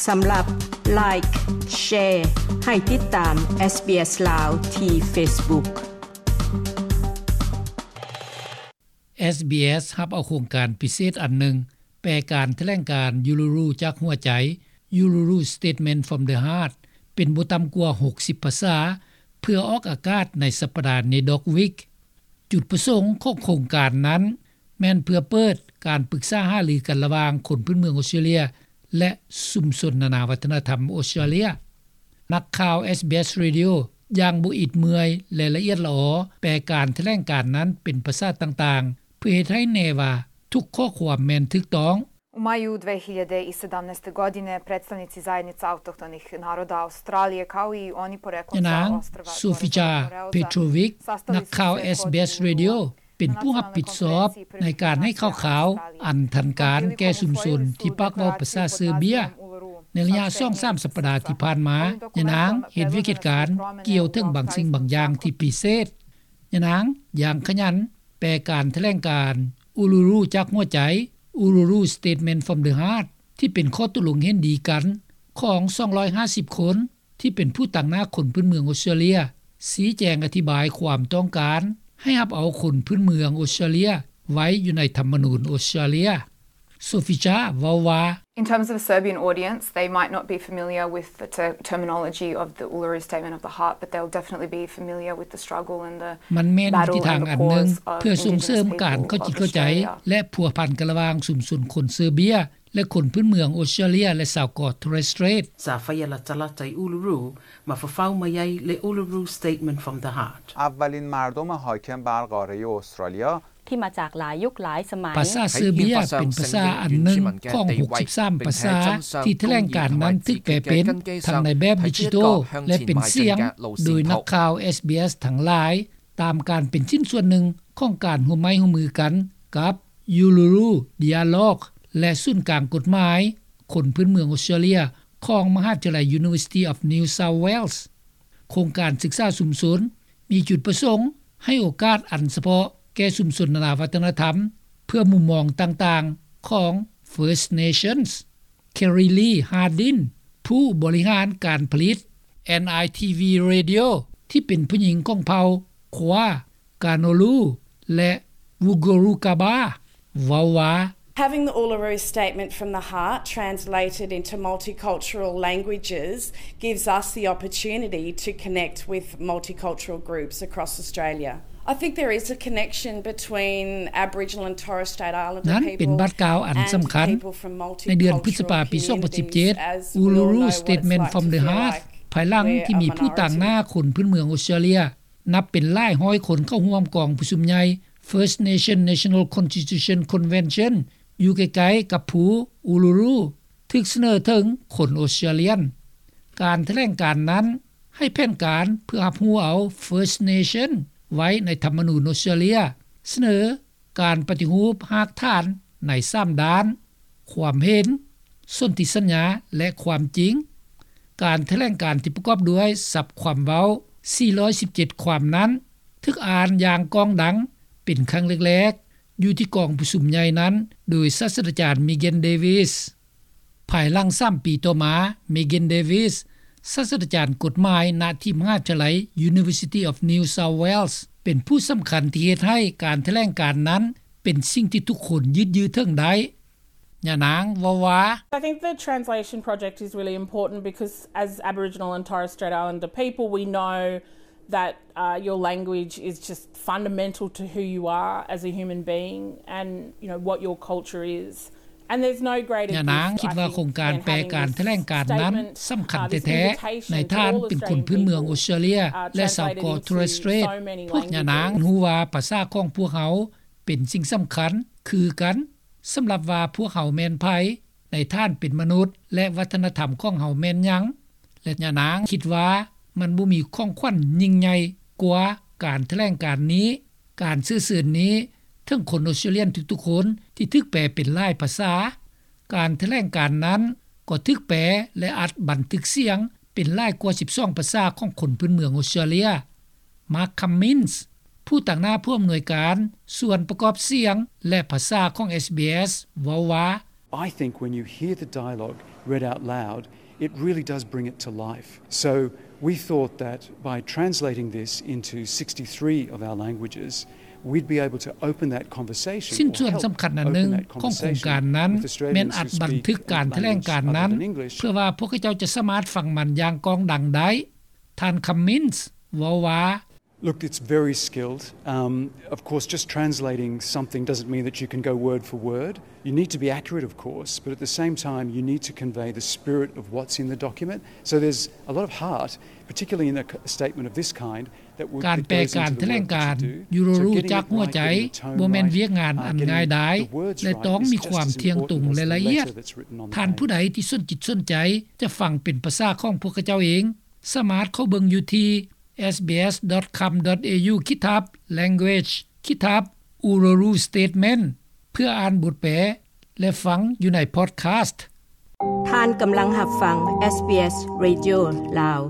ສຳລັບ Like, Share ໃຫ້ຕິດຕາມ SBS ລາວ ທີ່ Facebook. SBS ຮັບເອົາໂຄງການພິເສດອັນໜຶ່ງ, ແປການຖະແຫຼງການ Uluru ຈາກຫົວໃຈ, Uluru Statement from the Heart ເປັນບໍ່ຕ່ຳກວ່າຫົກສິບພາສາ ເພື່ອອອກອາກາດໃນສັບປະດາ NAIDOC Week. ຈຸດປະສົງຂອງໂຄງການນັ້ນ ແມ່ນເພື່ອເປີດການປຶກສາຫາລືກັນລະຫວ່າງຄົນພື້ນເມືອງອົດສະຕຣາເລຍ ແລະ ຊຸມຊົນນານາວັດທະນະທຳອົດສະຕຣາເລຍ. ນັກຂ່າວ SBS Radio ຢ່າງບໍ່ອິດເມື່ອຍ ແລະ ລະອຽດລະອໍ ແປການຖະແຫຼງການນັ້ນເປັນພາສາຕ່າງໆ ເພື່ອເຮັດໃຫ້ແນ່ວ່າທຸກຂໍ້ຄວາມແມ່ນຖືກຕ້ອງ. U maju dve hiljade i sedamnaeste godine predstavnici Zajednice autohtonih naroda Australije, kao i oni poreklom sa ostrva Torres Strait, ຍານາງ Sofica Petrovic ນັກຂ່າວ SBS Radio ເປັນຜູ້ຮັບຜິດຊອບໃນການໃຫ້ຂ່າວໆອັນທັນການແກ່ຊຸມຊົນທີ່ປາກເວົ້າພາສາເຊີເບຍ. ໃນໄລຍະສອງສາມສັບປະດາທີ່ຜ່ານມາ, ຍານາງເຮັດວຽກເຮັດການກ່ຽວເຖິງບາງສິ່ງບາງຢ່າງທີ່ພິເສດ. ຍານາງຢ່າງຂະຫຍັນແປການຖະແຫຼງການ Uluru ຈາກຫົວໃຈ, Uluru Statement from the Heart ທີ່ເປັນຂໍ້ຕົກລົງເຫັນດີກັນຂອງສອງຮ້ອຍຫ້າສິບຄົນ ທີ່ເປັນຜູ້ຕາງໜ້າຄົນພື້ນເມືອງອົດສະຕຣາເລຍ ຊີ້ແຈງອະທິບາຍຄວາມຕ້ອງການໃຫ້ຮັບເອົາຄົນພື້ນເມືອງອົດສະຕຣາເລຍໄວ້ຢູ່ໃນທຳມະນູນອົດສະຕຣາເລຍ. Sofica ເວົ້າວ່າ, In terms of a Serbian audience, they might not be familiar with the ter-, terminology of the Uluru Statement of the Heart, but they'll definitely be familiar with the struggle and the battle and the cause of Indigenous people of Australia. ມັນແມ່ນວິທີທາງອັນໜຶ່ງເພື່ອສົ່ງເສີມການເຂົ້າຈິດເຂົ້າໃຈ ແລະ ພົວພັນກັນລະຫວ່າງຊຸມຊົນຄົນເຊີເບຍ ແລະ ຄົນພື້ນເມືອງອົດສະຕຣາເລຍ ແລະ ຊາວເກາະ Torres Strait. Sa faʻalatalata i Uluru, ma fafau mai ai le Uluru Statement from the Heart. اولین مردم حاکم بر قارهٔ استرالیا. ທີ່ມາຈາກຫຼາຍຍຸກຫຼາຍສະໄໝ. ພາສາເຊີເບຍເປັນພາສາອັນໜຶ່ງຂອງຫົກສິບສາມພາສາທີ່ຖະແຫຼງການນັ້ນຖືກແປເປັນທັງໃນແບບດິຈິຕອລ ແລະ ເປັນສຽງ ໂດຍນັກຂ່າວ SBS ທັງຫຼາຍ ຕາມການເປັນຊິ້ນສ່ວນໜຶ່ງຂອງການຮ່ວມໄມ້ຮ່ວມມືກັນກັບ Uluru Dialogue ແລະ ສູນກາງກົດໝາຍຄົນພື້ນເມືອງອົດສະຕຣາເລຍ ຂອງມະຫາວິທະຍາໄລ University of New South Wales. ໂຄງການສຶກສາຊຸມຊົນມີຈຸດປະສົງໃຫ້ໂອກາດອັນສະເພາະແກ່ຊຸມຊົນນານາວັດທະນະທຳ ເພື່ອມຸມມອງຕ່າງໆຂອງ First Nations. Kerry Lee Hardin ຜູ້ບໍລິຫານການຜະລິດ NITV Radio ທີ່ເປັນຜູ້ຍິງຂອງເຜົ່າ Kwa, Kanolu ແລະ Wulgurukaba ເວົ້າວ່າ, Having the Uluru Statement from the Heart translated into multicultural languages gives us the opportunity to connect with multicultural groups across Australia. I think there is a connection between Aboriginal and Torres Strait Islander people and people from multicultural communities as Uluru Statement from the Heart. ນັ້ນເປັນບາດກ້າວອັນສຳຄັນ. ໃນເດືອນພຶດສະພາປີສອງພັນສິບເຈັດ Uluru Statement from the Heart ພາຍຫຼັງທີ່ມີຜູ້ຕາງໜ້າຄົນພື້ນເມືອງອົດສະຕຣາເລຍ ນັບເປັນຫຼາຍຮ້ອຍຄົນເຂົ້າຮ່ວມກອງປະຊຸມໃຫຍ່ First Nation National Constitution Convention ຢູ່ໃກ້ໆກັບພູ Uluru ຖືກສະເໜີເຖິງຄົນອົດສະຕຣາເລຍນ. ການຖະແຫຼງການນັ້ນໃຫ້ແຜນການເພື່ອຮັບຮູ້ເອົາ First Nation ໄວ້ໃນທຳມະນູນອົດສະຕຣາເລຍ, ສະເໜີການປະຕິຮູບຮາກຖານໃນສາມດ້ານ, ຄວາມເຫັນ, ສົນທິສັນຍາ ແລະ ຄວາມຈິງ. ການຖະແຫຼງການທີ່ປະກອບດ້ວຍສັບຄວາມເວົ້າສີ່ຮ້ອຍສິບເຈັດຄວາມນັ້ນ ຖືກອ່ານຢ່າງກ້ອງດັງເປັນຄັ້ງແລກໆ ຢູ່ທີ່ກອງປະຊຸມໃຫຍ່ນັ້ນ ໂດຍສາດສະດາຈານ Megan Davis. ພາຍຫຼັງສາມປີຕໍ່ມາ, Megan Davis ສາດສະດາຈານກົດໝາຍ ນະທີ່ມະຫາວິທະຍາໄລ University of New South Wales ເປັນຜູ້ສຳຄັນທີ່ເຮັດໃຫ້ການຖະແຫຼງການນັ້ນເປັນສິ່ງທີ່ທຸກຄົນຍືດເຍື້ອເຖິງໄດ້. ຍານາງເວົ້າວ່າ, I think the translation project is really important because as Aboriginal and Torres Strait Islander people, we know that, uh, your language is just fundamental to who you are as a human being and, you know, what your culture is. And there's no greater gift, I think, than having this statement, uh, this invitation to all Australian people, uh, translated into so many languages, ຍານາງຄິດວ່າໂຄງການແປການຖະແຫຼງການນັ້ນສຳຄັນແທ້ໆ ໃນທ່ານເປັນຄົນພື້ນເມືອງອົດສະຕຣາເລຍ ແລະ ຊາວເກາະ Torres Strait. ພວກຍານາງຮູ້ວ່າພາສາຂອງພວກເຮົາເປັນສິ່ງສຳຄັນຄືກັນ ສຳລັບວ່າພວກເຮົາແມ່ນໃຜ, ໃນທ່ານເປັນມະນຸດ ແລະ ວັດທະນະທຳຂອງເຮົາແມ່ນຫຍັງ ແລະ ຍານາງຄິດວ່າມັນບໍ່ມີຂອງຂວັນຍິ່ງໃຫຍ່ກວ່າການຖະແຫຼງການນີ້, ການເຊື້ອເຊີນນີ້ເຖິງຄົນອົດສະຕຣາເລຍນທຸກໆຄົນທີ່ຖືກແປເປັນຫຼາຍພາສາ. ການຖະແຫຼງການນັ້ນກໍຖືກແປ ແລະ ອັດບັນທຶກສຽງເປັນຫຼາຍກວ່າສິບສອງພາສາຂອງຄົນພື້ນເມືອງອົດສະຕຣາເລຍ. Mark Cummins ຜູ້ຕາງໜ້າຜູ້ອຳນວຍການສ່ວນປະກອບສຽງ ແລະ ພາສາຂອງ SBS ເວົ້າວ່າ, I think when you hear the dialogue read out loud, it really does bring it to life. So we thought that by translating this into sixty-three of our languages, we'd be able to open that conversation. ຊິ້ນສ່ວນສຳຄັນອັນໜຶ່ງຂອງໂຄງການນັ້ນ ແມ່ນອັດບັນທຶກການຖະແຫຼງການນັ້ນ ເພື່ອວ່າພວກເຂົາເຈົ້າຈະສາມາດຟັງມັນຢ່າງກ້ອງດັງໄດ້. ທ່ານ Cummins ເວົ້າວ່າ Look, it's very skilled. Um, of course, just translating something doesn't mean that you can go word for word. You need to be accurate, of course, but at the same time, you need to convey the spirit of what's in the document. So there's a lot of heart, particularly in a statement of this kind, ການແປການຖະແຫຼງການ Uluru ຈາກຫົວໃຈ ບໍ່ແມ່ນວຽກງານອັນງ່າຍດາຍ ແລະ ຕ້ອງມີຄວາມທ່ຽງຕົງ ແລະ ລະອຽດ. ທ່ານຜູ້ໃດທີ່ສົນຈິດສົນໃຈ ຈະຟັງເປັນພາສາຂອງພວກເຂົາເຈົ້າເອງ ສາມາດເຂົ້າເບິ່ງຢູ່ທີ່ sbs.com.au ຂີດທັບ language ຂີດທັບ Uluru Statement ເພື່ອອ່ານບົດແປ ແລະ ຟັງຢູ່ໃນ podcast. ທ່ານກຳລັງຮັບຟັງ SBS Radio ລາວ.